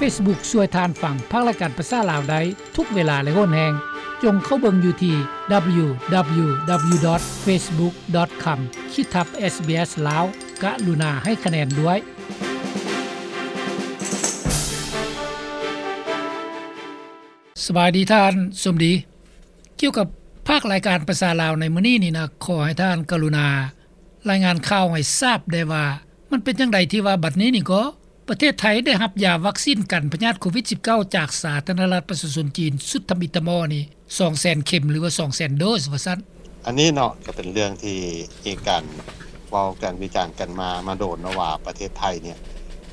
Facebook ຊ່ວຍທ່ານຟັງພາກລາຍການພາສາລາວໄດ້ທຸກເວລາ ແລະ ໂຫນແຮງ. ຈົ່ງເຂົ້າເບິ່ງຢູ່ທີ່ www.facebook.com ຂີດທັບ SBS Lao ກະລຸນາໃຫ້ຄະແນນດ້ວຍ. ສະບາຍດີທ່ານສົມດີ. ກ່ຽວກັບພາກລາຍການພາສາລາວໃນມື້ນີ້ນີ້ນະ, ຂໍໃຫ້ທ່ານກະລຸນາລາຍງານຂ່າວໃຫ້ຊາບແດ່ວ່າ ມັນເປັນຈັ່ງໃດທີ່ວ່າບັດນີ້ນີ້ກໍ ປະເທດໄທໄດ້ຮັບຢາວັກຊີນກັນພະຍາດໂຄວິດສິບເກົ້າ ຈາກສາທາລະນະລັດປະຊາຊົນຈີນ ຊຸດທຳອິດທຳອໍນີ້ ສອງແສນເຂັມ ຫຼືວ່າ ສອງແສນໂດສວ່າຊັ້ນ. ອັນນີ້ເນາະ ກໍເປັນເລື່ອງທີ່ມີການເວົ້າກັນວິຈານກັນມາ ມາໂດນເນາະວ່າ ປະເທດໄທນີ້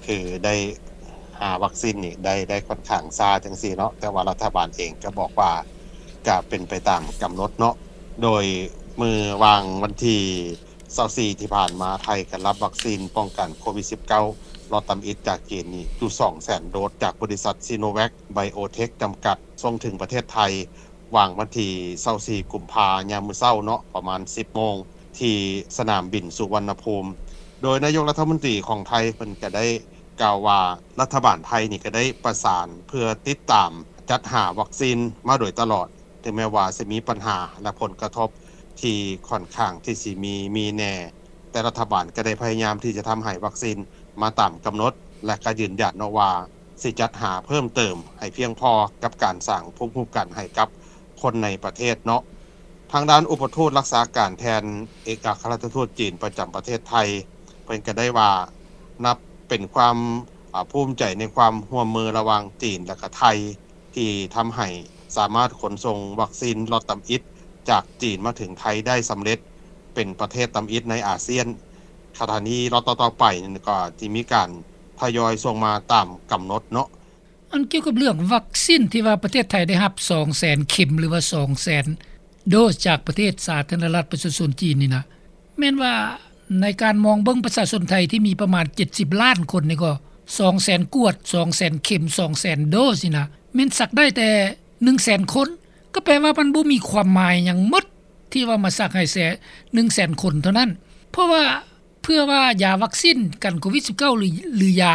ຄືໄດ້ຫາວັກຊີນນີ້ໄດ້ ໄດ້ຂ້ອນຂ້າງຊ້າຈັ່ງຊີ້ເນາະ, ແຕ່ວ່າລັດຖະບານເອງກໍບອກວ່າ ກະເປັນໄປຕາມກຳນົດເນາະ. ໂດຍມື້ວ່າງວັນທີຊາວສີ່ທີ່ຜ່ານມາ ໄທກໍຮັບວັກຊີນປ້ອງກັນໂຄວິດສິບເກົ້າ ລັອດທຳອິດຈາກຈີນນີ້ຢູ່ສອງແສນໂດສ ຈາກບໍລິສັດ Sinovac Biotech ຈຳກັດ ສົ່ງເຖິງປະເທດໄທ ວ່າງວັນທີຊາວສີ່ກຸມພາ ຍາມມື້ເຊົ້າເນາະ ປະມານສິບໂມງ ທີ່ສະໜາມບິນສຸວັນນະພູມ. ໂດຍນາຍົກລັດຖະມົນຕີຂອງໄທເພິ່ນກໍໄດ້ກ່າວວ່າ ລັດຖະບານໄທນີ້ກໍໄດ້ປະສານເພື່ອຕິດຕາມຈັດຫາວັກຊີນມາໂດຍຕະຫຼອດ. ເຖິງແມ່ວ່າຊິມີບັນຫາ ແລະ ຜົນກະທົບທີ່ຂ້ອນຂ້າງທີ່ຊິມີ ມີແດ່, ແຕ່ລັດຖະບານກໍໄດ້ພະຍາຍາມທີ່ຈະທຳໃຫ້ວັກຊີນມາຕາມກຳນົດ ແລະ ກໍຢືນຢັນເນາະວ່າ ຊິຈັດຫາເພີ່ມເຕີມໃຫ້ພຽງພໍກັບການສ້າງພູມຄຸ້ມກັນໃຫ້ກັບຄົນໃນປະເທດເນາະ. ທາງດ້ານອຸປະທູດລັກສາການແທນເອກອັກຄະລັດຖະທູດຈີນປະຈຳປະເທດໄທ ເພິ່ນກໍໄດ້ວ່າ ນັບເປັນຄວາມ ອາ ພູມໃຈໃນຄວາມຮ່ວມມືລະຫວ່າງຈີນ ແລະ ກະໄທ ທີ່ທຳໃຫ້ສາມາດຂົນສົ່ງວັກຊີນລັອດທຳອິດຈາກຈີນມາເຖິງໄທໄດ້ສຳເລັດ ເປັນປະເທດທຳອິດໃນອາຊຽນ. ຂະນະນີ້ລັອດຕໍ່ໆໄປນີ້ກໍຈະມີການທະຍອຍສົ່ງມາຕາມກຳນົດເນາະ. ອັນກ່ຽວກັບເລື່ອງວັກຊີນທີ່ວ່າປະເທດໄທໄດ້ຮັບສອງແສນເຂັມ ຫຼືວ່າສອງແສນໂດສຈາກປະເທດສາທາລະນະລັດປະຊາຊົນຈີນນີ້ນະ ແມ່ນວ່າໃນການມອງເບິ່ງປະຊາຊົນໄທທີ່ມີປະມານເຈັດສິບລ້ານຄົນນີ້ກໍ ສອງແສນກວດ ສອງແສນເຂັມ ສອງແສນໂດສນີ້ນະ ແມ່ນສັກໄດ້ແຕ່ໜຶ່ງແສນຄົນ ກໍແປວ່າມັນບໍ່ມີຄວາມໝາຍຫຍັງໝົດ ທີ່ວ່າມາສັກໃຫ້ແຕ່ໜຶ່ງແສນຄົນເທົ່ານັ້ນ. ເພາະວ່າເພື່ອວ່າຢາວັກຊີນກັນໂຄວິດສິບເກົ້າ ຫຼື ຫຼືຢາ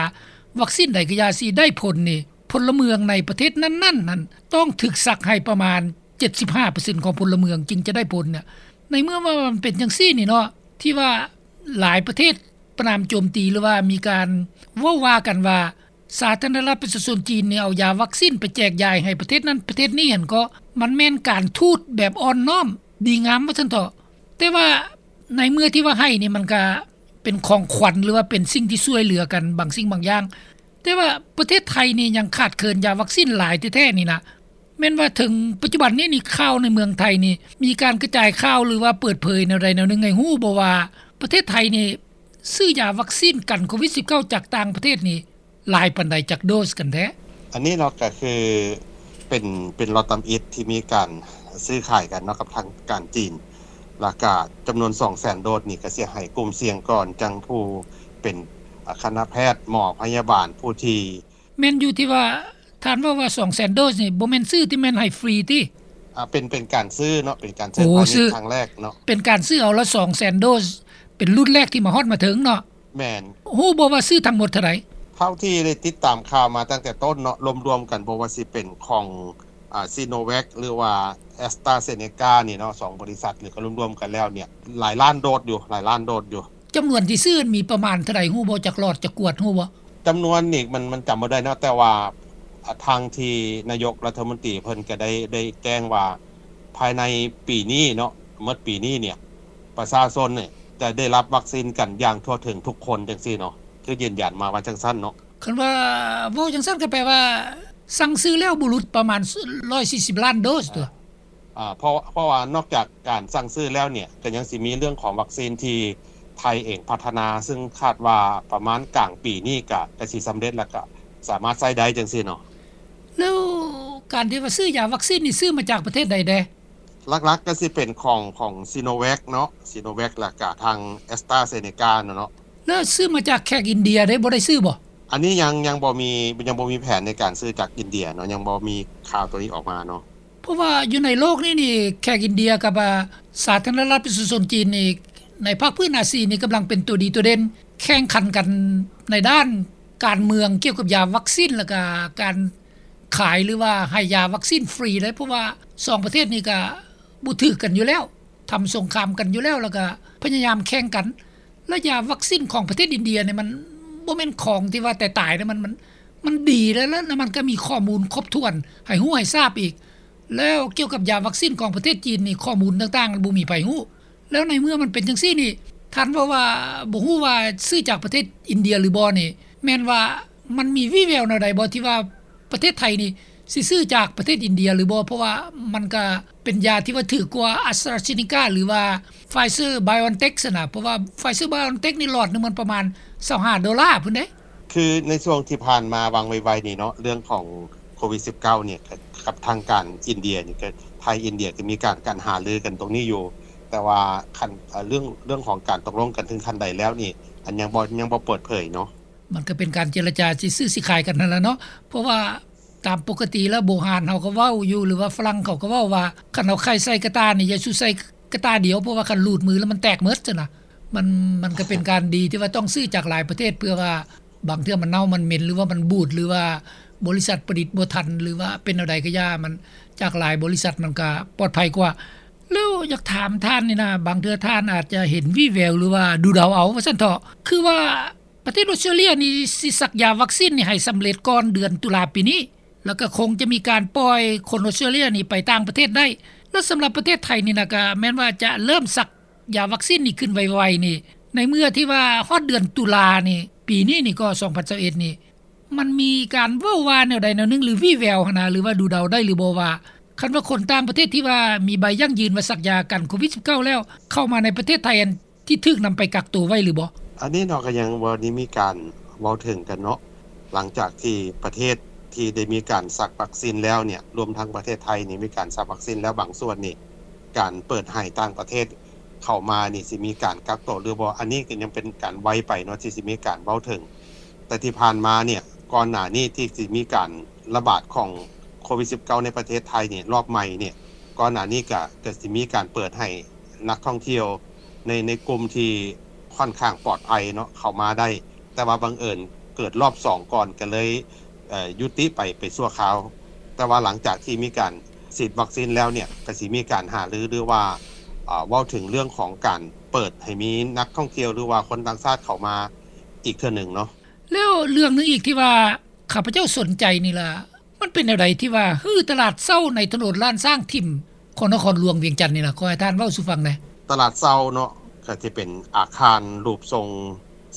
ວັກຊີນໃດກໍຢ່າ ຊິໄດ້ຜົນນີ້ ພົນລະເມືອງໃນປະເທດນັ້ນໆນັ້ນ ຕ້ອງຖືກສັກໃຫ້ປະມານເຈັດສິບຫ້າເປີເຊັນຂອງພົນລະເມືອງຈຶ່ງຈະໄດ້ຜົນນະ. ໃນເມື່ອວ່າມັນເປັນຈັ່ງຊີ້ນີ້ເນາະ ທີ່ວ່າຫຼາຍປະເທດປະນາມໂຈມຕີ ຫຼືວ່າມີການເວົ້າວ່າກັນວ່າ ສາທາລະນະລັດປະຊາຊົນຈີນນີ້ເອົາຢາວັກຊີນໄປແຈກຢາຍໃຫ້ປະເທດນັ້ນປະເທດນີ້ຫັ້ນ ກໍມັນແມ່ນການທູດແບບອ່ອນນ້ອມດີງາມວ່າຊັ້ນເຖາະ. ແຕ່ວ່າໃນເມື່ອທີ່ວ່າໃຫ້ນີ້ ມັນກະເປັນຂອງຂວັນ ຫຼືວ່າເປັນສິ່ງທີ່ຊ່ວຍເຫຼືອກັນບາງສິ່ງບາງຢ່າງ. ແຕ່ວ່າປະເທດໄທນີ້ຍັງຂາດເຂີນຢາວັກຊີນຫຼາຍແທ້ໆນີ້ນະ. ແມ່ນວ່າເຖິງປັດຈຸບັນນີ້ນີ້ ຂ່າວໃນເມືອງໄທນີ້ ມີການກະຈາຍຂ່າວ ຫຼືວ່າເປີດເຜີຍແນວໃດແນວໜຶ່ງໃຫ້ຮູ້ບໍ່ວ່າ ປະເທດໄທນີ້ ຊື້ຢາວັກຊີນກັນໂຄວິດສິບເກົ້າຈາກຕ່າງປະເທດນີ້ ຫຼາຍປານໃດຈັກໂດສກັນແທ້? ອັນນີ້ເນາະ ກໍຄືເປັນ ເປັນລັອດທຳອິດທີ່ມີການຊື້ຂາຍກັນເນາະ ກັບທາງການຈີນ ແລ້ວກະຈຳນວນສອງແສນໂດສນີ້ ກໍຊິໃຫ້ກຸ່ມສ່ຽງກ່ອນ ຈັ່ງຜູ້ເປັນ ອາ ຄະນະແພດ ໝໍພະຍາບານ ຜູ້ທີ່ ແມ່ນຢູ່ທີ່ວ່າທ່ານເວົ້າວ່າສອງແສນໂດສນີ້ ບໍ່ແມ່ນຊື້ທີ່ແມ່ນໃຫ້ຟຣີຕິ? ອາ ເປັນ ເປັນການຊື້ເນາະ ເປັນການໃຊ້ພານິດ ໂອ້ ຊື້ ຄັ້ງແລກເນາະ ເປັນການຊື້ເອົາລະສອງແສນໂດສ ເປັນລຸ້ນແລກທີ່ມາຮອດມາເຖິງເນາະ. ແມ່ນ. ຮູ້ບໍ່ວ່າຊື້ທັງໝົດເທົ່າໃດ? ເທົ່າທີ່ໄດ້ຕິດຕາມຂ່າວມາຕັ້ງແຕ່ຕົ້ນເນາະ ລວມໆກັນ ບໍ່ວ່າຊິເປັນຂອງ ອາ Sinovac ຫຼືວ່າ AstraZeneca ນີ້ເນາະ ສອງບໍລິສັດນີ້ກໍລວມໆກັນແລ້ວນີ້ ຫຼາຍລ້ານໂດສຢູ່ ຫຼາຍລ້ານໂດສຢູ່. ຈຳນວນທີ່ຊື້ມີປະມານເທົ່າໃດ ຮູ້ບໍ່? ຈັກຫຼອດ ຈັກກວດ ຮູ້ບໍ່? ຈຳນວນນີ້ມັນ ມັນຈຳບໍ່ໄດ້ເນາະ ແຕ່ວ່າ ອາ ທາງທີ່ນາຍົກລັດຖະມົນຕີເພິ່ນກໍໄດ້ ໄດ້ແຈ້ງວ່າ ພາຍໃນປີນີ້ເນາະ ໝົດປີນີ້ນີ້ ປະຊາຊົນນີ້ຈະໄດ້ຮັບວັກຊີນກັນຢ່າງທົ່ວເຖິງທຸກຄົນ ຈັ່ງຊີ້ເນາະ ຄືຢືນຢັນມາວ່າຈັ່ງຊັ້ນເນາະ. ຄັນວ່າເວົ້າຈັ່ງຊັ້ນກໍແປວ່າ ສັ່ງຊື້ແລ້ວບໍ່ຫຼຸດປະມານ ຮ້ອຍສີ່ສິບລ້ານໂດສຕົວະ. ອາ ເພາະ ເພາະວ່ານອກຈາກການສັ່ງຊື້ແລ້ວນີ້ ກໍຍັງຊິມີເລື່ອງຂອງວັກຊີນທີ່ໄທເອງພັດທະນາ ຊຶ່ງຄາດວ່າປະມານກາງປີນີ້ກະ ກະຊິສຳເລັດ ແລ້ວກະສາມາດໃຊ້ໄດ້ຈັ່ງຊີ້ເນາະ. ແລ້ວການທີ່ວ່າຊື້ຢາວັກຊີນນີ້ ຊື້ມາຈາກປະເທດໃດແດ່? ຫຼັກໆກໍຊິເປັນຂອງ ຂອງ Sinovac ເນາະ Sinovac ແລ້ວກະທາງ AstraZeneca ເນາະ. ແລ້ວຊື້ມາຈາກແຂກອິນເດຍເດ້ ບໍ່ໄດ້ຊື້ບໍ່? ອັນນີ້ຍັງ ຍັງບໍ່ມີ ຍັງບໍ່ມີແຜນໃນການຊື້ຈາກອິນເດຍເນາະ ຍັງບໍ່ມີຂ່າວໂຕນີ້ອອກມາເນາະ. ເພາະວ່າຢູ່ໃນໂລກນີ້ນີ້ ແຂກອິນເດຍກັບ ອາ ສາທາລະນະລັດປະຊາຊົນຈີນນີ້ ໃນພາກພື້ນອາຊີນີ້ກຳລັງເປັນຕົວດີຕົວເດັ່ນ ແຂ່ງຂັນກັນໃນດ້ານ ການເມືອງກ່ຽວກັບຢາວັກຊິນ ແລ້ວກະການຂາຍ ຫຼືວ່າໃຫ້ຢາວັກຊິນຟຣີໄດ໋ ເພາະວ່າສອງປະເທດນີ້ກະບໍ່ຖືກກັນຢູ່ແລ້ວ ທຳສົງຄາມກັນຢູ່ແລ້ວ ແລ້ວກະພະຍາຍາມແຂ່ງກັນ ແລະຢາວັກຊິນຂອງປະເທດອິນເດຍນີ້ ມັນບໍ່ແມ່ນຂອງທີ່ວ່າຕາຍໆເດ້ ມັນ ມັນ ມັນດີແລ້ວ ແລ້ວມັນກໍມີຂໍ້ມູນຄົບຖ້ວນໃຫ້ຮູ້ໃຫ້ຊາບອີກ ແລ້ວກ່ຽວກັບຢາວັກຊິນຂອງປະເທດຈີນນີ້ ຂໍ້ມູນຕ່າງໆບໍ່ມີໃຜຮູ້ ແລ້ວໃນເມື່ອມັນເປັນຈັ່ງຊີ້ນີ້ ທ່ານເວົ້າວ່າບໍ່ຮູ້ວ່າຊື້ຈາກປະເທດອິນເດຍຫຼືບໍ່ນີ້ ແມ່ນວ່າມັນມີວີ່ແວວແນວໃດບໍ່ ທີ່ວ່າປະເທດໄທນີ້ຊິຊື້ຈາກປະເທດອິນເດຍຫຼືບໍ່ ເພາະວ່າມັນກະເປັນຢາທີ່ວ່າຖືກກວ່າ AstraZeneca ຫຼືວ່າ Pfizer BioNTech ຊັ້ນນະ ເພາະວ່າ Pfizer BioNTech ນີ້ຫຼອດໜຶ່ງມັນປະມານຊາວຫ້າໂດລາພຸ້ນເດ້. ຄືໃນຊ່ວງທີ່ຜ່ານມາຫວ່າງໄວໆນີ້ເນາະ ເລື່ອງຂອງໂຄວິດສິບເກົ້ານີ້ ກັບທາງການອິນເດຍນີ້ ກໍໄທອິນເດຍກໍມີການ ການຫາລືກັນຕົງນີ້ຢູ່ ແຕ່ວ່າຂັ້ນ ເອີ່ ເລື່ອງ ເລື່ອງຂອງການຕົກລົງກັນເຖິງຂັ້ນໃດແລ້ວນີ້ ອັນຍັງບໍ່ ຍັງບໍ່ເປີດເຜີຍເນາະ. ມັນກໍເປັນການເຈລະຈາຊິຊື້ຊິຂາຍກັນຫັ້ນລະເນາະ ເພາະວ່າຕາມປົກກະຕິແລ້ວ ບູຮານເຮົາກໍເວົ້າຢູ່ ຫຼືວ່າຝຣັ່ງເຂົາກໍເວົ້າວ່າ ຄັນເອົາໄຂ່ໃສ່ກະຕ່ານີ້ ຢ່າສູ່ໃສ່ກະຕ່າດຽວ ເພາະວ່າຄັນຫຼູດມືແລ້ວມັນແຕກໝົດຊັ້ນນະ. ມັນ ມັນກໍເປັນການດີທີ່ວ່າຕ້ອງຊື້ຈາກຫຼາຍປະເທດ ເພື່ອວ່າ ບາງເທື່ອມັນເນົ່າມັນເໝັນ ຫຼືວ່າມັນບູດ ຫຼືວ່າບໍລິສັດຜະລິດບໍ່ທັນ ຫຼືວ່າເປັນແນວໃດກໍຢ່າ ມັນຈາກຫຼາຍບໍລິສັດມັນກໍປອດໄພກວ່າ. ແລ້ວຢາກຖາມທ່ານນີ້ນະ ບາງເທື່ອທ່ານອາດຈະເຫັນວີ່ແວວ ຫຼືວ່າດູເດົາເອົາວ່າຊັ້ນເຖາະ ຄືວ່າປະເທດອອສເຕຣເລຍນີ້ຊິສັກຢາວັກຊິນນີ້ໃຫ້ສຳເລັດກ່ອນເດືອນຕຸລາປີນີ້ ແລ້ວກໍຄົງຈະມີການປ່ອຍຄົນອອສເຕຣເລຍນີ້ໄປຕ່າງປະເທດໄດ້ ແລ້ວສຳລັບປະເທດໄທນີ້ນະ ກໍແມ່ນວ່າຈະເລີ່ມສັກ ຢາວັກຊິນນີ້ຂຶ້ນໄວໆນີ້ ໃນເມື່ອທີ່ວ່າຮອດເດືອນຕຸລານີ້ ປີນີ້ນີ້ກໍ ສອງພັນຊາວເອັດນີ້ ມັນມີການເວົ້າວ່າແນວໃດແນວໜຶ່ງ ຫຼືວີ່ແວວຫັ້ນນະ ຫຼືວ່າດູເດົາໄດ້ຫຼືບໍ່ວ່າ ຄັນວ່າຄົນຕ່າງປະເທດທີ່ວ່າມີໃບຢັ້ງຢືນວ່າສັກຢາກັນໂຄວິດສິບເກົ້າແລ້ວ ເຂົ້າມາໃນປະເທດໄທ ອັນທີ່ຖືກນຳໄປກັກໂຕໄວ້ຫຼືບໍ່? ອັນນີ້ເນາະ ກໍຍັງບໍ່ໄດ້ມີການເວົ້າເຖິງກັນເນາະ ຫຼັງຈາກທີ່ປະເທດທີ່ໄດ້ມີການສັກວັກຊິນແລ້ວເນ່ຍ ລວມທັງປະເທດໄທນີ້ມີການສັກວັກຊິນແລ້ວບາງສ່ວນນີ້ ການເປີດໃຫ້ຕ່າງປະເທດເຂົ້າມານີ້ ຊິມີການກັກໂຕຫຼືບໍ່ ອັນນີ້ກໍຍັງເປັນການໄວໄປເນາະ ທີ່ຊິມີການເວົ້າເຖິງ. ແຕ່ທີ່ຜ່ານມາເນ່ຍ ກ່ອນໜ້ານີ້ທີ່ຊິມີການລະບາດຂອງໂຄວິດສິບເກົ້າໃນປະເທດໄທນີ້ ລອບໃໝ່ນີ້ ກ່ອນໜ້ານີ້ກະ ກະຊິມີການເປີດໃຫ້ນັກທ່ອງທ່ຽວໃນ ໃນກຸ່ມທີ່ຂ້ອນຂ້າງປອດໄພເນາະ ເຂົ້າມາໄດ້ ແຕ່ວ່າບັງເອີນເກີດລອບສອງກ່ອນ ກໍເລີຍ ເອີ່ ຍຸຕິໄປ ໄປຊົ່ວຄາວ. ແຕ່ວ່າຫຼັງຈາກທີ່ມີການສີດວັກຊິນແລ້ວເນ່ຍ ກໍຊິມີການຫາລື ຫຼືວ່າ ເວົ້າເຖິງເລື່ອງຂອງການເປີດໃຫ້ມີນັກທ່ອງທ່ຽວ ຫຼືວ່າຄົນຕ່າງຊາດເຂົ້າມາອີກເທື່ອໜຶ່ງເນາະ. ແລ້ວເລື່ອງໜຶ່ງອີກທີ່ວ່າຂ້າພະເຈົ້າສົນໃຈນີ້ລະ ມັນເປັນແນວໃດທີ່ວ່າຮື້ຕະຫຼາດເຊົ້າໃນຖະໜົນລ້ານຊ້າງຖິ້ມຂອງນະຄອນຫຼວງວຽງຈັນນີ້ນະ? ຂໍໃຫ້ທ່ານເວົ້າສູ່ຟັງແດ່. ຕະຫຼາດເຊົ້າເນາະ ກໍຈະເປັນອາຄານຮູບຊົງ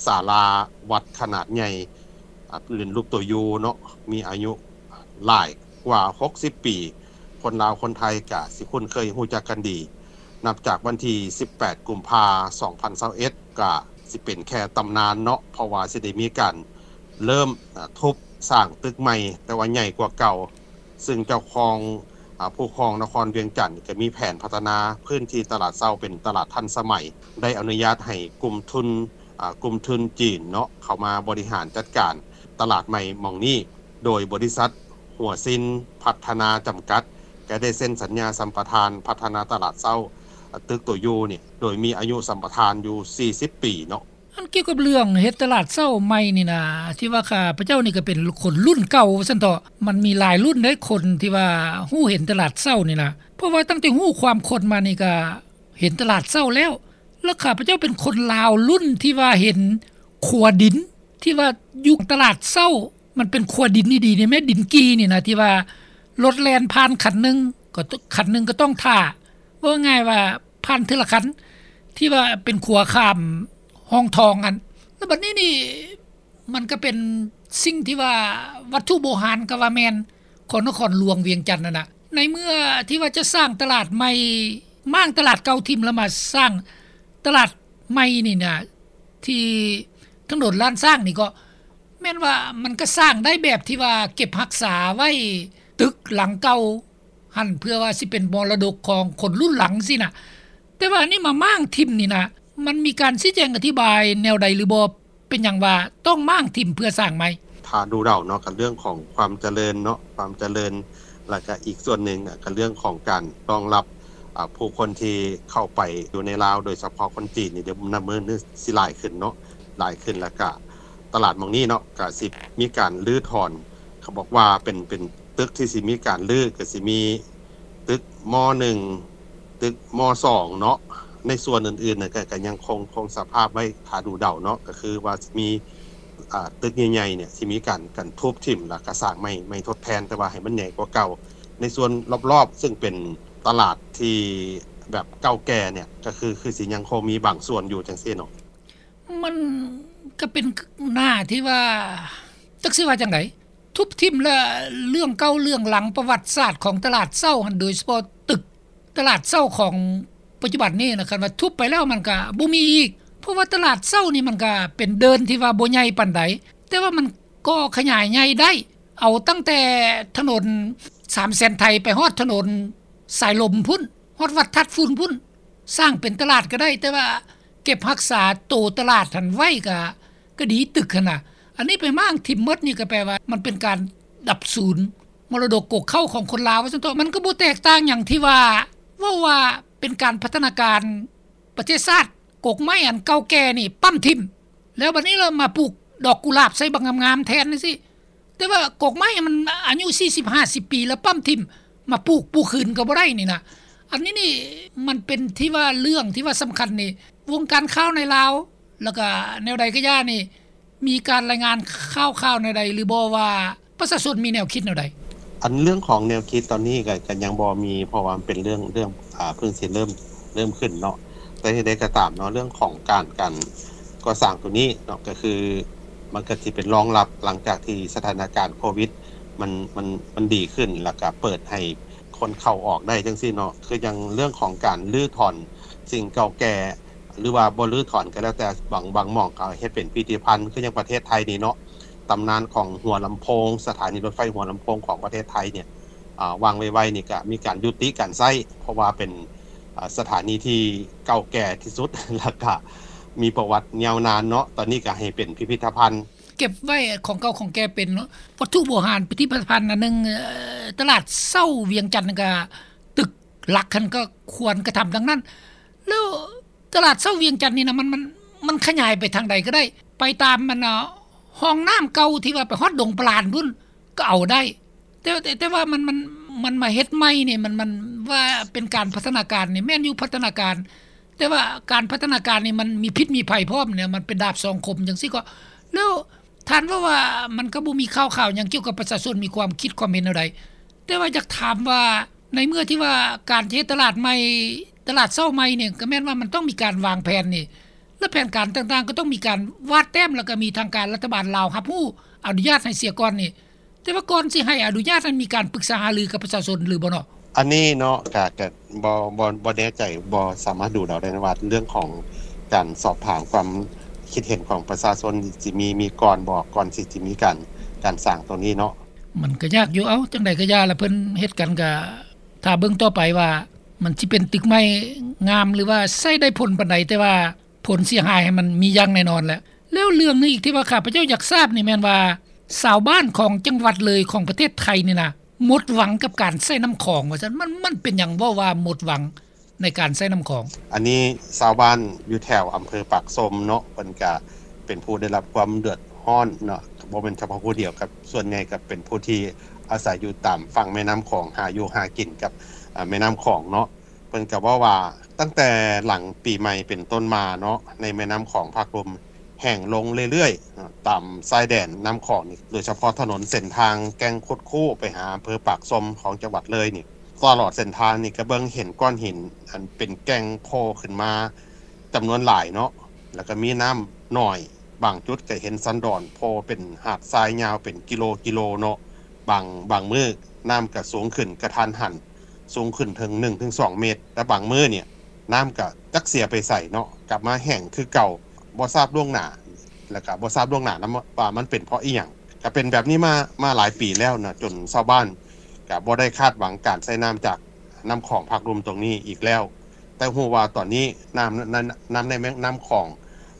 ສາລາວັດຂະໜາດໃຫຍ່ ອາ ເປັນຮູບຕົວ U ເນາະ ມີອາຍຸຫຼາຍກວ່າຫົກສິບປີ ຄົນລາວຄົນໄທກະຊິຄຸ້ນເຄີຍຮູ້ຈັກກັນດີ. ນັບຈາກວັນທີສິບແປດກຸມພາ ສອງພັນຊາວເອັດ ກະຊິເປັນແຄ່ຕຳນານເນາະ ເພາະວ່າຊິໄດ້ມີການເລີ່ມ ອາ ທຸບສ້າງຕຶກໃໝ່ ແຕ່ວ່າໃຫຍ່ກວ່າເກົ່າ ຊຶ່ງເຈົ້າຂອງ ອາ ຜູ້ຄອງນະຄອນວຽງຈັນ ກໍມີແຜນພັດທະນາພື້ນທີ່ຕະຫຼາດເຊົ້າເປັນຕະຫຼາດທັນສະໄໝ ໄດ້ອະນຸຍາດໃຫ້ກຸ່ມທຶນ ອາ ກຸ່ມທຶນຈີນເນາະ ເຂົ້າມາບໍລິຫານຈັດການຕະຫຼາດໃໝ່ໝ່ອງນີ້ ໂດຍບໍລິສັດຫົວຊິນພັດທະນາຈຳກັດ ກໍໄດ້ເຊັນສັນຍາສຳປະທານພັດທະນາຕະຫຼາດເຊົ້າ ອາ ຕຶກໂຕຢູນີ້ ໂດຍມີອາຍຸສຳປະທານຢູ່ສີ່ສິບປີເນາະ. ອັນກ່ຽວກັບເລື່ອງເຮັດຕະຫຼາດເຊົ້າໃໝ່ນີ້ນະ ທີ່ວ່າຂ້າພະເຈົ້ານີ້ກໍເປັນຄົນລຸ້ນເກົ່າວ່າຊັ້ນເຖາະ ມັນມີຫຼາຍລຸ້ນເດ້ ຄົນທີ່ວ່າຮູ້ເຫັນຕະຫຼາດເຊົ້ານີ້ນະ ເພາະວ່າຕັ້ງແຕ່ຮູ້ຄວາມຄົນມານີ້ກໍເຫັນຕະຫຼາດເຊົ້າແລ້ວ ແລ້ວຂ້າພະເຈົ້າເປັນຄົນລາວລຸ້ນທີ່ວ່າເຫັນຂົວດິນ ທີ່ວ່າຢູ່ຕະຫຼາດເຊົ້າ ມັນເປັນຂົວດິນດີໆນີ້ແມ່ນດິນກີ່ນີ້ນະ ທີ່ວ່າລົດແລ່ນຜ່ານຄັນໜຶ່ງ ກໍ ຄັນໜຶ່ງກໍຕ້ອງຖ້າ ເວົ້າງ່າຍວ່າຜ່ານເທື່ອລະຄັນ ທີ່ວ່າເປັນຂົວຂ້າມຮ່ອງທອງຫັ້ນ ແລ້ວບັດນີ້ນີ້ ມັນກໍເປັນສິ່ງທີ່ວ່າວັດຖຸໂບຮານກໍວ່າແມ່ນຂອງນະຄອນຫຼວງວຽງຈັນຫັ້ນນະ ໃນເມື່ອທີ່ວ່າຈະສ້າງຕະຫຼາດໃໝ່ ມ້າງຕະຫຼາດເກົ່າຖິ້ມ ແລ້ວມາສ້າງຕະຫຼາດໃໝ່ນີ້ນະ ທີ່ຖະໜົນລ້ານຊ້າງນີ້ກໍແມ່ນວ່າມັນກໍສ້າງໄດ້ແບບທີ່ວ່າເກັບຮັກສາໄວ້ ຕຶກຫຼັງເກົ່າ ຫັ້ນ ເພື່ອວ່າຊິເປັນມໍລະດົກຂອງຄົນລຸ້ນຫຼັງຊີ້ນະ ແຕ່ວ່າອັນນີ້ມາມ້າງຖິ້ມນີ້ນະ ມັນມີການຊີ້ແຈງອະທິບາຍແນວໃດຫຼືບໍ່? ເປັນຫຍັງວ່າຕ້ອງມ້າງຖິ້ມເພື່ອສ້າງໃໝ່? ຖ້າດູເດົາເນາະ ກໍເລື່ອງຂອງຄວາມຈະເລີນເນາະ ຄວາມຈະເລີນ ແລ້ວກໍອີກສ່ວນໜຶ່ງກໍເລື່ອງຂອງການຮອງຮັບ ອາ ຜູ້ຄົນທີ່ເຂົ້າໄປຢູ່ໃນລາວ ໂດຍສະເພາະຄົນຈີນນີ້ ດຽວນັບມື້ນີ້ຊິຫຼາຍຂຶ້ນເນາະ ຫຼາຍຂຶ້ນ ແລ້ວກໍຕ ຕະຫຼາດໝ່ອງນີ້ເນາະ ກະຊິມີການຮື້ຖອນ ເຂົາບອກວ່າເປັນ ເປັນຕຶກທີ່ຊິມີການຮື້ ກະຊິມີຕຶກ ມ.ໜຶ່ງ ຕຶກ ມ.ສອງ ເນາະ. ໃນສ່ວນອື່ນໆນະ ກະ ກະຍັງຄົງ ຄົງສະພາບໄວ້ຖ້າດູເດົາເນາະ ກະຄືວ່າຊິມີ ອ່າ ຕຶກໃຫຍ່ໆເນຍ ຊິມີການ ການທຸບຖິ້ມ ແລ້ວກະສ້າງໃໝ່ ໃໝ່ທົດແທນ ແຕ່ວ່າໃຫ້ມັນໃຫຍ່ກວ່າເກົ່າ. ໃນສ່ວນລອບໆ ຊຶ່ງເປັນຕະຫຼາດທີ່ແບບເກົ່າແກ່ເນຍ ກະຄື ຄືຊິຍັງຄົງມີບາງສ່ວນຢູ່ຈັ່ງຊີ້ເນາະ. ມັນກະເປັນໜ້າທີ່ວ່າ ຈັກຊິວ່າຈັ່ງໃດ ທຸບຖິ້ມ ແລະ ເລື່ອງເກົ່າເລື່ອງຫຼັງປະຫວັດສາດຂອງຕະຫຼາດເຊົ້າຫັ້ນ ໂດຍສະເພາະຕຶກຕະຫຼາດເຊົ້າຂອງປັດຈຸບັນນີ້ນະ ຄັນວ່າທຸບໄປແລ້ວມັນກະບໍ່ມີອີກ ເພາະວ່າຕະຫຼາດເຊົ້ານີ້ມັນກະເປັນເດີ່ນທີ່ວ່າບໍ່ໃຫຍ່ປານໃດ ແຕ່ວ່າມັນກໍຂະຫຍາຍໃຫຍ່ໄດ້ ເອົາຕັ້ງແຕ່ຖະໜົນສາມແສນໄທ ໄປຮອດຖະໜົນສາຍລົມພຸ້ນ ຮອດວັດທາດຝຸ່ນພຸ້ນ ສ້າງເປັນຕະຫຼາດກະໄດ້ ແຕ່ວ່າເກັບຮັກສາໂຕຕະຫຼາດຫັ້ນໄວ້ກະ ກະດີ ຕຶກຫັ້ນນະ. ອັນນີ້ໄປມ້າງຖິ້ມໝົດນີ້ກະແປວ່າມັນເປັນການດັບສູນມໍລະດົກກົກເຄົ້າຂອງຄົນລາວວ່າຊັ້ນເຖາະ. ມັນກະບໍ່ແຕກຕ່າງຫຍັງທີ່ວ່າ ເວົ້າວ່າເປັນການພັດທະນາການປະເທດຊາດ ກົກໄມ້ອັນເກົ່າແກ່ນີ້ປ້ຳຖິ້ມ ແລ້ວບັດນີ້ລະມາປູກດອກກຸຫຼາບໃສ່ບັກງາມໆແທນຈັ່ງຊີ້. ແຕ່ວ່າກົກໄມ້ມັນອາຍຸສີ່ສິບຫ້າສິບປີ ແລ້ວປ້ຳຖິ້ມ ມາປູກ ປູກຄືນກະບໍ່ໄດ້ນີ້ນະ. ອັນນີ້ນີ້ມັນເປັນທີ່ວ່າເລື່ອງທີ່ວ່າສຳຄັນນີ້ ວົງການຂ່າວໃນລາວ ແລ້ວກະແນວໃດກະຢ່ານີ້ ມີການລາຍງານຂ່າວໆແນວໃດຫຼືບໍ່ວ່າ ປະຊາຊົນມີແນວຄິດແນວໃດ? ອັນເລື່ອງຂອງແນວຄິດຕອນນີ້ກະ ກະຍັງບໍ່ມີ ເພາະວ່າມັນເປັນເລື່ອງ ເລື່ອງ ອ່າ ເພິ່ງຊິເລີ່ມ ເລີ່ມຂຶ້ນເນາະ. ແຕ່ເຖິງໃດກະຕາມເນາະ ເລື່ອງຂອງການ ການກໍ່ສ້າງໂຕນີ້ເນາະ ກະຄືມັນກະຊິເປັນລອງຮັບ ຫຼັງຈາກທີ່ສະຖານະການໂຄວິດ ມັນ ມັນ ມັນດີຂຶ້ນ ແລ້ວກະເປີດໃຫ້ຄົນເຂົ້າອອກໄດ້ຈັ່ງຊີ້ເນາະ. ຄືຢ່າງເລື່ອງຂອງການຮື້ຖອນສິ່ງເກົ່າແກ່ ຫຼືວ່າບໍ່ຮື້ຖອນກະແລ້ວແຕ່ ບາງ ບາງໝ່ອງກະເຮັດເປັນພິພິທະພັນ ຄືຢ່າງປະເທດໄທນີ້ເນາະ ຕຳນານຂອງຫົວລຳໂພງ ສະຖານີລົດໄຟຫົວລຳໂພງຂອງປະເທດໄທເນຍ ອາ ວາງໄວໆນີ້ກະມີການຍຸຕິການໃຊ້ ເພາະວ່າເປັນ ອາ ສະຖານີທີ່ເກົ່າແກ່ທີ່ສຸດ ແລ້ວກະມີປະຫວັດຍາວນານເນາະ. ຕອນນີ້ກະໃຫ້ເປັນພິພິທະພັນ ເກັບໄວ້ຂອງເກົ່າຂອງແກ່ເປັນເນາະ ວັດຖຸໂບຮານ ພິພິທະພັນອັນໜຶ່ງ ເອີ ຕະຫຼາດເຊົ້າວຽງຈັນກະ ຕຶກຫຼັກຫັ້ນກະຄວນກະທຳດັ່ງນັ້ນ. ແລ້ວຕະຫຼາດເຊົ້າວຽງຈັນນີ້ນະ ມັນ ມັນ ມັນຂະຫຍາຍໄປທາງໃດກະໄດ້ ໄປຕາມອັນ ຮ່ອງນ້ຳເກົ່າທີ່ວ່າໄປຮອດດົງປະລານພຸ້ນກະເອົາໄດ້ ແຕ່ ແຕ່ ແຕ່ວ່າມັນ ມັນ ມັນມາເຮັດໃໝ່ນີ້ ມັນ ມັນວ່າເປັນການພັດທະນາການນີ້ ແມ່ນຢູ່ພັດທະນາການ ແຕ່ວ່າການພັດທະນາການນີ້ມັນມີພິດມີໄພພ້ອມເນຍ ມັນເປັນດາບສອງຄົມຈັ່ງຊີ້ກໍ ແລ້ວທ່ານເວົ້າວ່າມັນກະບໍ່ມີຂ່າວຄາວຫຍັງກ່ຽວກັບປະຊາຊົນມີຄວາມຄິດຄວາມເຫັນແນວໃດ ແຕ່ວ່າຢາກຖາມວ່າ ໃນເມື່ອທີ່ວ່າການຈະເຮັດຕະຫຼາດໃໝ່ ຕະຫຼາດເຊົ້າໃໝ່ນີ້ ກະແມ່ນວ່າມັນຕ້ອງມີການວາງແຜນນີ້ ແລະ ແຜນການຕ່າງໆກະຕ້ອງມີການວາດແຕ້ມ ແລ້ວກະມີທາງການລັດຖະບານລາວຮັບຮູ້ອະນຸຍາດໃຫ້ເສຍກ່ອນນີ້ ແຕ່ວ່າກ່ອນຊິໃຫ້ອະນຸຍາດນັ້ນ ມີການປຶກສາຫາລືກັບປະຊາຊົນຫຼືບໍ່ເນາະ? ອັນນີ້ເນາະ ກະ ກະບໍ່ ບໍ່ ບໍ່ແນ່ໃຈ ບໍ່ສາມາດດູເດົາໄດ້ວ່າ ເລື່ອງຂອງການສອບຖາມຄວາມຄິດເຫັນຂອງປະຊາຊົນຊິມີ ມີກ່ອນບໍ່ ກ່ອນຊິ ຊິມີການ ການສ້າງໂຕນີ້ເນາະ. ມັນກະຍາກຢູ່ ເອົ້າ ຈັ່ງໃດກະຢ່າລະ ເພິ່ນເຮັດກັນກະ ຖ້າເບິ່ງຕໍ່ໄປວ່າ ມັນຊິເປັນຕຶກໃໝ່ງາມ ຫຼືວ່າໃຊ້ໄດ້ຜົນປານໃດ ແຕ່ວ່າຜົນເສຍຫາຍຫັ້ນມັນມີຢ່າງແນ່ນອນແຫຼະ. ແລ້ວເລື່ອງໜຶ່ງອີກທີ່ວ່າຂ້າພະເຈົ້າຢາກຊາບນີ້ແມ່ນວ່າ ຊາວບ້ານຂອງຈັງຫວັດເລີຍຂອງປະເທດໄທນີ້ນະ ໝົດຫວັງກັບການໃຊ້ນ້ຳຂອງວ່າຊັ້ນ ມັນ ມັນເປັນຫຍັງເວົ້າວ່າໝົດຫວັງໃນການໃຊ້ນ້ຳຂອງ? ອັນນີ້ຊາວບ້ານຢູ່ແຖວອຳເພີປາກຊົມເນາະ ເພິ່ນກະເປັນຜູ້ໄດ້ຮັບຄວາມເດືອດຮ້ອນເນາະ ບໍ່ແມ່ນສະເພາະຜູ້ດຽວ ກັບສ່ວນໃຫຍ່ກະເປັນຜູ້ທີ່ອາໄສຢູ່ຕາມຝັ່ງແມ່ນ້ຳຂອງ ຫາຢູ່ຫາກິນກັບ ອາ ແມ່ນ້ຳຂອງເນາະ. ເພິ່ນກະເວົ້າວ່າ ຕັ້ງແຕ່ຫຼັງປີໃໝ່ເປັນຕົ້ນມາເນາະ ໃນແມ່ນ້ຳຂອງພາກລຸ່ມແຫ້ງລົງເລື້ອຍໆ ຕາມຊາຍແດນນ້ຳຂອງນີ້ ໂດຍສະເພາະຖະໜົນເສັ້ນທາງແກ່ງຄຸດຄູ້ໄປຫາອຳເພີປາກຊົມຂອງຈັງຫວັດເລີຍນີ້ ຕະຫຼອດເສັ້ນທາງນີ້ກະເບິ່ງເຫັນກ້ອນຫີນອັນເປັນແກ່ງໂຜ່ຂຶ້ນມາຈຳນວນຫຼາຍເນາະ ແລ້ວກະມີນ້ຳໜ້ອຍ ບາງຈຸດກະເຫັນສັນດອນໂຜ່ເປັນຫາດຊາຍຍາວເປັນກິໂລກິໂລເນາະ. ບາງ ບາງມື້ນ້ຳກະສູງຂຶ້ນກະທັນຫັນ ສູງຂຶ້ນເຖິງໜຶ່ງເຖິງສອງເມດ ແລະບາງມື້ນີ້ນ້ຳກະຈັກເສຍໄປໃສເນາະ ກັບມາແຫ້ງຄືເກົ່າ ບໍ່ຊາບລ່ວງໜ້າ ແລະກະບໍ່ຊາບລ່ວງໜ້ານຳວ່າມັນເປັນເພາະອີ່ຫຍັງ. ກະເປັນແບບນີ້ມາ ມາຫຼາຍປີແລ້ວເນາະ ຈົນຊາວບ້ານກະບໍ່ໄດ້ຄາດຫວັງການໃຊ້ນ້ຳຈາກນ້ຳຂອງພາກລຸ່ມຕົງນີ້ອີກແລ້ວ. ແຕ່ຮູ້ວ່າຕອນນີ້ນ້ຳ ນ້ຳ ນ້ຳໃນແມ່ນ້ຳຂອງ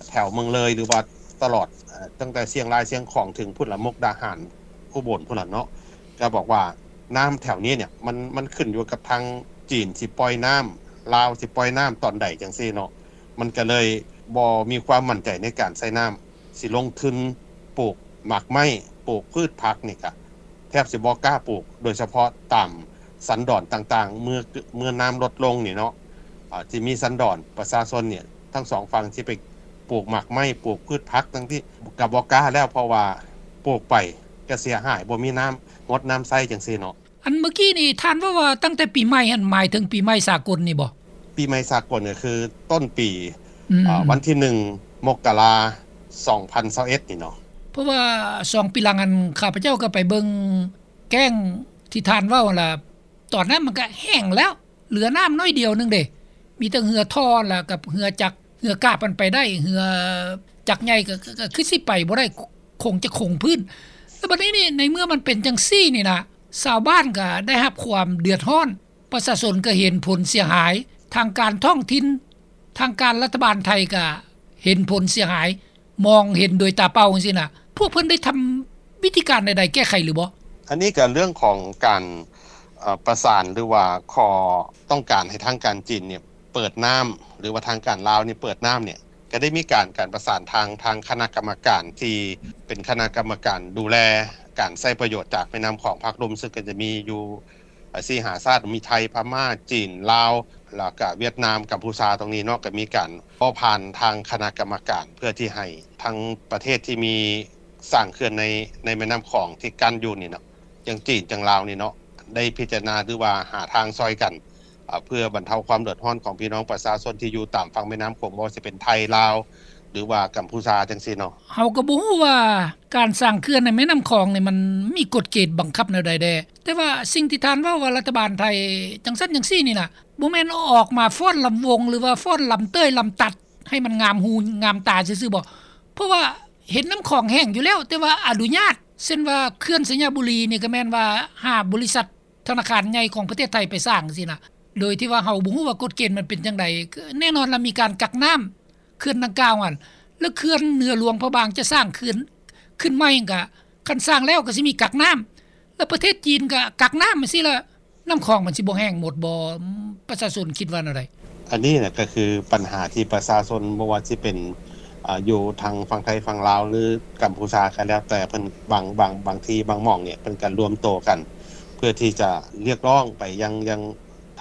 ແຖວເມືອງເລີຍ ຫຼືວ່າຕະຫຼອດ ເອີ ຕັ້ງແຕ່ຊຽງລາຍ ຊຽງຂອງ ເຖິງພຸ້ນລະ ມຸກດາຫານ ອຸບົນພຸ້ນລະເນາະ ກະບອກວ່ານ້ຳແຖວນີ້ເນຍ ມັນ ມັນຂຶ້ນຢູ່ກັບທາງຈີນຊິປ່ອຍນ້ຳ ລາວຊິປ່ອຍນ້ຳຕອນໃດຈັ່ງຊີ້ເນາະ ມັນກະເລີຍບໍ່ມີຄວາມໝັ້ນໃຈໃນການໃຊ້ນ້ຳ ຊິລົງທຶນ ປູກໝາກໄມ້ ປູກພືດຜັກນີ້ກະແທບຊິບໍ່ກ້າປູກ ໂດຍສະເພາະຕາມສັນດອນຕ່າງໆ ເມື່ອ ເມື່ອນ້ຳລົດລົງນີ້ເນາະ ອາ ທີ່ມີສັນດອນປະຊາຊົນນີ້ ທັງສອງຝັ່ງຊິໄປປູກໝາກໄມ້ ປູກພືດຜັກ ທັງທີ່ກະບໍ່ກ້າແລ້ວ ເພາະວ່າປູກໄປກະເສຍຫາຍ ບໍ່ມີນ້ຳຫົດນ້ຳໃຊ້ຈັ່ງຊີ້ເນາະ. ອັນເມື່ອກີ້ນີ້ທ່ານເວົ້າວ່າຕັ້ງແຕ່ປີໃໝ່ຫັ້ນ ໝາຍເຖິງປີໃໝ່ສາກົນນີ້ບໍ່? ປີໃໝ່ສາກົນກໍຄືຕົ້ນປີ ອືມ ອາ ວັນທີໜຶ່ງ ມົກກະລາ ສອງພັນຊາວເອັດນີ້ເນາະ. ເພາະວ່າສອງປີຫຼັງຫັ້ນ ຂ້າພະເຈົ້າກໍໄປເບິ່ງແກ້ງທີ່ທ່ານເວົ້າຫັ້ນລະ ຕອນນັ້ນມັນກໍແຫ້ງແລ້ວ ເຫຼືອນ້ຳໜ້ອຍດຽວໜຶ່ງເດ້ ມີແຕ່ເຮືອທໍ່ລະກັບເຮືອຈັກ ເຮືອກາບມັນໄປໄດ້ ເຮືອຈັກໃຫຍ່ກໍ ກໍ ກໍຄືຊິໄປບໍ່ໄດ້ ຄົງຈະຄົງພື້ນ. ແລ້ວບັດນີ້ນີ້ ໃນເມື່ອມັນເປັນຈັ່ງຊີ້ນີ້ນະ ຊາວບ້ານກໍໄດ້ຮັບຄວາມເດືອດຮ້ອນ ປະຊາຊົນກໍເຫັນຜົນເສຍຫາຍ ທາງການທ້ອງຖິ່ນ ທາງການລັດຖະບານໄທກໍເຫັນຜົນເສຍຫາຍ ມອງເຫັນໂດຍຕາເປົ່າຈັ່ງຊີ້ນະ ພວກເພິ່ນໄດ້ທຳວິທີການໃດໆແກ້ໄຂຫຼືບໍ່? ອັນນີ້ກໍເລື່ອງຂອງການ ເອີ ປະສານ ຫຼືວ່າຂໍຕ້ອງການໃຫ້ທາງການຈີນນີ້ເປີດນ້ຳ ຫຼືວ່າທາງການລາວນີ້ເປີດນ້ຳນີ້ ກໍໄດ້ມີການ ການປະສານທາງ ທາງຄະນະກຳມະການທີ່ເປັນຄະນະກຳມະການດູແລການໃຊ້ປະໂຫຍດຈາກແມ່ນ້ຳຂອງພາກລຸ່ມ ເຊິ່ງກໍຈະມີຢູ່ ເອີ ສີ່ຫ້າຊາດ ມີໄທ ພະມ້າ ຈີນ ລາວ ແລ້ວກະຫວຽດນາມ ກຳພູຊາ ຕົງນີ້ເນາະ ກໍມີການເວົ້າຜ່ານທາງຄະນະກຳມະການ ເພື່ອທີ່ໃຫ້ທັງປະເທດທີ່ມີສ້າງເຂື່ອນໃນ ໃນແມ່ນ້ຳຂອງທີ່ກັ້ນຢູ່ນີ້ເນາະ ຈັ່ງຈີນ ຈັ່ງລາວນີ້ເນາະ ໄດ້ພິຈາລະນາ ຫຼືວ່າຫາທາງຊ່ອຍກັນ ເພື່ອບັນເທົາຄວາມເດືອດຮ້ອນຂອງພີ່ນ້ອງປະຊາຊົນທີ່ຢູ່ຕາມຝັ່ງແມ່ນ້ຳຂອງ ບໍ່ວ່າຊິເປັນໄທ ລາວ ຫຼືວ່າກຳພູຊາ ຈັ່ງຊີ້ເນາະ. ເຮົາກໍບໍ່ຮູ້ວ່າການສ້າງເຂື່ອນໃນແມ່ນ້ຳຂອງນີ້ ມັນມີກົດເກນບັງຄັບແນວໃດແດ່ ແຕ່ວ່າສິ່ງທີ່ທ່ານເວົ້າວ່າລັດຖະບານໄທຈັ່ງຊັ້ນຈັ່ງຊີ້ນີ້ນະ ບໍ່ແມ່ນອອກມາຟ້ອນລຳວົງ ຫຼືວ່າຟ້ອນລຳເຕີຍລຳຕັດ ໃຫ້ມັນງາມຫູງາມຕາຊື່ໆບໍ? ເພາະວ່າເຫັນນ້ຳຂອງແຫ້ງຢູ່ແລ້ວ ແຕ່ວ່າອະນຸຍາດ ເຊັ່ນວ່າເຂື່ອນໄຊຍະບູລີນີ້ ກໍແມ່ນວ່າຫາບໍລິສັດ ທະນາຄານໃຫຍ່ຂອງປະເທດໄທໄປສ້າງຊີ້ນະ ໂດຍທີ່ວ່າເຮົາບໍ່ຮູ້ວ່າກົດເກນມັນເປັນຈັ່ງໃດ. ແນ່ນອນລະມີການກັກນ້ຳເຂື່ອນດັ່ງກ່າວຫັ້ນ ແລ້ວເຂື່ອນເໜືອຫຼວງພະບາງຈະສ້າງເຂື່ອນຂຶ້ນໃໝ່ກະ ຄັນສ້າງແລ້ວກໍຊິມີກັກນ້ຳ ແລ້ວປະເທດຈີນກໍກັກນ້ຳຊີ້ລະ ນ້ຳຂອງມັນຊິບໍ່ແຫ້ງໝົດບໍ່? ປະຊາຊົນຄິດວ່າແນວໃດ? ອັນນີ້ນະກໍຄືປັນຫາທີ່ປະຊາຊົນ ບໍ່ວ່າຊິເປັນ ອາ ຢູ່ທາງຝັ່ງໄທຝັ່ງລາວ ຫຼື ກຳພູຊາກໍແລ້ວແຕ່ ເພິ່ນບາງ ບາງ ບາງທີ່ບາງໝ່ອງນີ້ ເພິ່ນກໍລວມໂຕກັນ ເພື່ອທີ່ຈະຮຽກຮ້ອງໄປຍັງ ຍັງ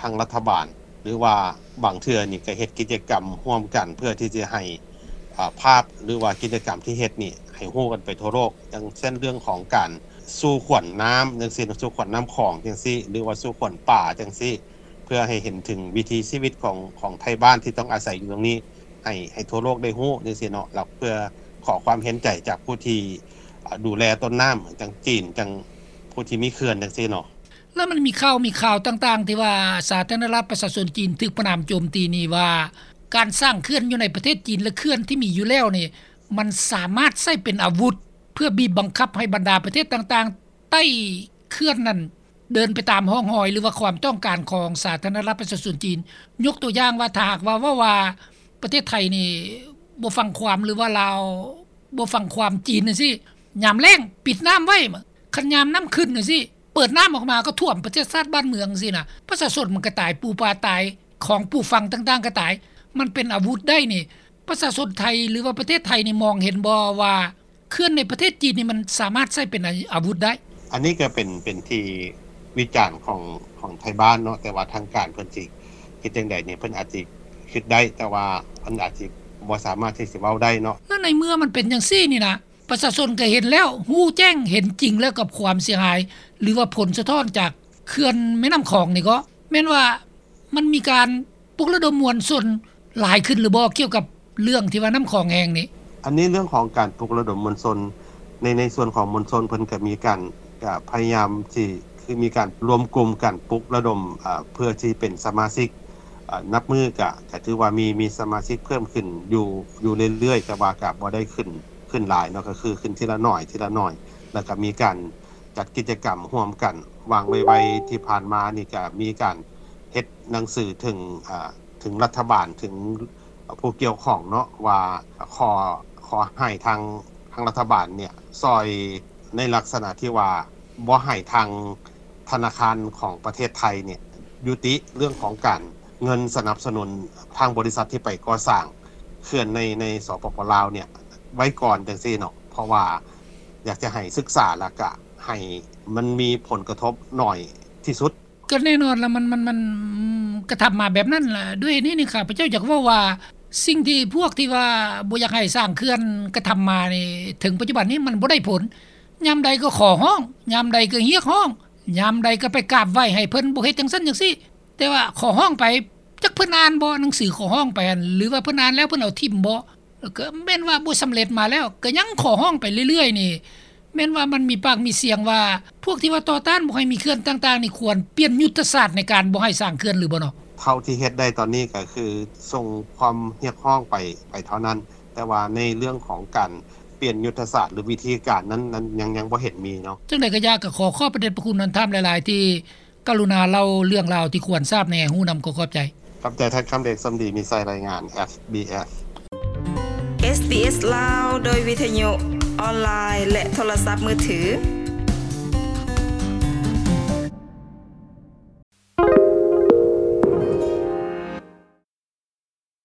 ທາງລັດຖະບານ ຫຼືວ່າບາງເທື່ອນີ້ກໍເຮັດກິດຈະກຳຮ່ວມກັນ ເພື່ອທີ່ຈະໃຫ້ ອາ ພາບ ຫຼືວ່າກິດຈະກຳທີ່ເຮັດນີ້ໃຫ້ຮູ້ກັນໄປທົ່ວໂລກ ຢ່າງເຊັ່ນເລື່ອງຂອງການ ສູ່ຂວັນນ້ຳຈັ່ງຊີ້ ສູ່ຂວັນນ້ຳຂອງຈັ່ງຊີ້ ຫຼືວ່າສູ່ຂວັນປ່າຈັ່ງຊີ້ ເພື່ອໃຫ້ເຫັນເຖິງວິຖີຊີວິດຂອງ ຂອງໄທບ້ານທີ່ຕ້ອງອາໄສຢູ່ຕົງນີ້ ໃຫ້ ໃຫ້ທົ່ວໂລກໄດ້ຮູ້ຈັ່ງຊີ້ເນາະ ແລ້ວເພື່ອຂໍຄວາມເຫັນໃຈຈາກຜູ້ທີ່ ອາ ດູແລຕົ້ນນ້ຳ ຈັ່ງຈີນ ຈັ່ງຜູ້ທີ່ມີເຂື່ອນຈັ່ງຊີ້ເນາະ. ແລ້ວມັນມີຂ່າວ ມີຂ່າວຕ່າງໆ ທີ່ວ່າສາທາລະນະລັດປະຊາຊົນຈີນຖືກປະນາມໂຈມຕີນີ້ວ່າ ການສ້າງເຂື່ອນຢູ່ໃນປະເທດຈີນ ແລະ ເຂື່ອນທີ່ມີຢູ່ແລ້ວນີ້ ມັນສາມາດໃຊ້ເປັນອາວຸດ ເພື່ອບີບບັງຄັບໃຫ້ບັນດາປະເທດຕ່າງໆ ໃຕ້ເຂື່ອນນັ້ນເດີນໄປຕາມຮ່ອງຮອຍ ຫຼືວ່າຄວາມຕ້ອງການຂອງສາທາລະນະລັດປະຊາຊົນຈີນ. ຍົກຕົວຢ່າງວ່າ ຖ້າຫາກວ່າເວົ້າວ່າປະເທດໄທນີ້ບໍ່ຟັງຄວາມ ຫຼືວ່າລາວບໍ່ຟັງຄວາມຈີນຈັ່ງຊີ້ ຍາມແລ້ງປິດນ້ຳໄວ້ ຄັນຍາມນ້ຳຂຶ້ນຈັ່ງຊີ້ ເປີດນ້ຳອອກມາກໍຖ້ວມປະເທດຊາດບ້ານເມືອງຈັ່ງຊີ້ນະ ປະຊາຊົນມັນກໍຕາຍ ປູປາຕາຍ ຂອງປູຟັງຕ່າງໆກໍຕາຍ ມັນເປັນອາວຸດໄດ້ນີ້ ປະຊາຊົນໄທ ຫຼືວ່າປະເທດໄທນີ້ມອງເຫັນບໍ່ວ່າ ເຂື່ອນໃນປະເທດຈີນນີ້ມັນສາມາດໃຊ້ເປັນອາ ອາວຸດໄດ້. ອັນນີ້ກໍເປັນ ເປັນທີ່ວິຈານຂອງ ຂອງໄທບ້ານເນາະ ແຕ່ວ່າທາງການເພິ່ນຊິເຮັດຈັ່ງໃດນີ້ ເພິ່ນອາດຊິຄິດໄດ້ ແຕ່ວ່າເພິ່ນອາດຊິບໍ່ສາມາດທີ່ຊິເວົ້າໄດ້ເນາະ. ແລ້ວໃນເມື່ອມັນເປັນຈັ່ງຊີ້ນີ້ນະ ປະຊາຊົນກໍເຫັນແລ້ວ ຮູ້ແຈ້ງເຫັນຈິງແລ້ວກັບຄວາມເສຍຫາຍ ຫຼືວ່າຜົນສະທ້ອນຈາກເຂື່ອນແມ່ນ້ຳຂອງນີ້ ກໍແມ່ນວ່າ ມັນມີການປຸກລະດົມມວນຊົນຫຼາຍຂຶ້ນຫຼືບໍ່ ກ່ຽວກັບເລື່ອງທີ່ວ່ານ້ຳຂອງແຫ້ງນີ້? ອັນນີ້ເລື່ອງຂອງການປຸກລະດົມມວນຊົນ ໃນ ໃນສ່ວນຂອງມວນຊົນເພິ່ນກໍມີການ ກະພະຍາຍາມທີ່ ຄືມີການລວມກຸ່ມກັນປຸກລະດົມ ອາ ເພື່ອທີ່ເປັນສະມາຊິກ ອາ ນັບມື້ກະ ກະຖືວ່າມີ ມີສະມາຊິກເພີ່ມຂຶ້ນຢູ່ ຢູ່ເລື້ອຍໆ ແຕ່ວ່າກະບໍ່ໄດ້ຂຶ້ນ ຂຶ້ນຫຼາຍເນາະ ກໍຄືຂຶ້ນທີລະໜ້ອຍ ທີລະໜ້ອຍ ແລ້ວກະມີການ ຈັດກິດຈະກຳຮ່ວມກັນ. ຫວ່າງໄວໆທີ່ຜ່ານມານີ້ກະມີການເຮັດໜັງສືເຖິງ ອາ ເຖິງລັດຖະບານ ເຖິງຜູ້ກ່ຽວຂ້ອງເນາະ ວ່າຂໍ ຂໍໃຫ້ທາງ ທາງລັດຖະບານເນ່ຍ ຊ່ອຍໃນລັກສະນະທີ່ວ່າບໍ່ໃຫ້ທາງທະນາຄານຂອງປະເທດໄທເນ່ຍ ຍຸຕິເລື່ອງຂອງການ ເງິນສະໜັບສະໜູນທາງບໍລິສັດທີ່ໄປກໍ່ສ້າງເຂື່ອນໃນ ໃນ ສປປ ລາວ ເນ່ຍ ໄວ້ກ່ອນຈັ່ງຊີ້ເນາະ ເພາະວ່າ ຢາກຈະໃຫ້ສຶກສາ ແລ້ວກະໃຫ້ມັນມີຜົນກະທົບໜ້ອຍທີ່ສຸດ. ກໍແນ່ນອນລະ ມັນ ມັນ ມັນ ກະທຳມາແບບນັ້ນລະ. ດ້ວຍນີ້ນີ້ ຂ້າພະເຈົ້າຢາກເວົ້າວ່າ ສິ່ງທີ່ພວກທີ່ວ່າບໍ່ຢາກໃຫ້ສ້າງເຂື່ອນກະທຳມານີ້ ເຖິງປັດຈຸບັນນີ້ມັນບໍ່ໄດ້ຜົນ. ຍາມໃດກໍຂໍຮ້ອງ, ຍາມໃດກໍຮຽກຮ້ອງ, ຍາມໃດກໍໄປກາບໄຫວ້ໃຫ້ເພິ່ນບໍ່ເຮັດຈັ່ງຊັ້ນຈັ່ງຊີ້. ແຕ່ວ່າຂໍຮ້ອງໄປ ຈັກເພິ່ນອ່ານບໍ່ ໜັງສືຂໍຮ້ອງໄປຫັ້ນ ຫຼືວ່າເພິ່ນອ່ານແລ້ວເພິ່ນເອົາຖິ້ມບໍ່? ແລ້ວກໍແມ່ນວ່າບໍ່ສຳເລັດມາແລ້ວ ກໍຍັງຂໍຮ້ອງໄປເລື້ອຍໆນີ້ ແມ່ນວ່າມັນມີປາກມີສຽງວ່າ ພວກທີ່ວ່າຕໍ່ຕ້ານບໍ່ໃຫ້ມີເຂື່ອນຕ່າງໆນີ້ ຄວນປ່ຽນຍຸດທະສາດໃນການບໍ່ໃຫ້ສ້າງເຂື່ອນຫຼືບໍ່ເນາະ? ເທົ່າທີ່ເຮັດໄດ້ຕອນນີ້ກໍຄືສົ່ງຄວາມຮຽກຮ້ອງໄປ ໄປເທົ່ານັ້ນ, ແຕ່ວ່າໃນເລື່ອງຂອງການປ່ຽນຍຸດທະສາດ ຫຼື ວິທີການນັ້ນ ນັ້ນຍັງ ຍັງບໍ່ເຫັນມີເນາະ. ຈັ່ງໃດກໍຢ່າ ກໍຂໍຂອບພະເດດພະຄຸນທ່ານຫຼາຍໆ ທີ່ ກະລຸນາເລົ່າເລື່ອງລາວທີ່ຄວນຊາບແດ່. ຮູ້ນຳກໍຂອບໃຈ. ຂອບໃຈທ່ານຄຳເດດ ສົມດີມີໄຊ ລາຍງານ ເອສບີເອສ ເອສບີເອສ ລາວ ໂດຍວິທະຍຸ ອອນລາຍ ແລະ ໂທລະສັບມືຖື.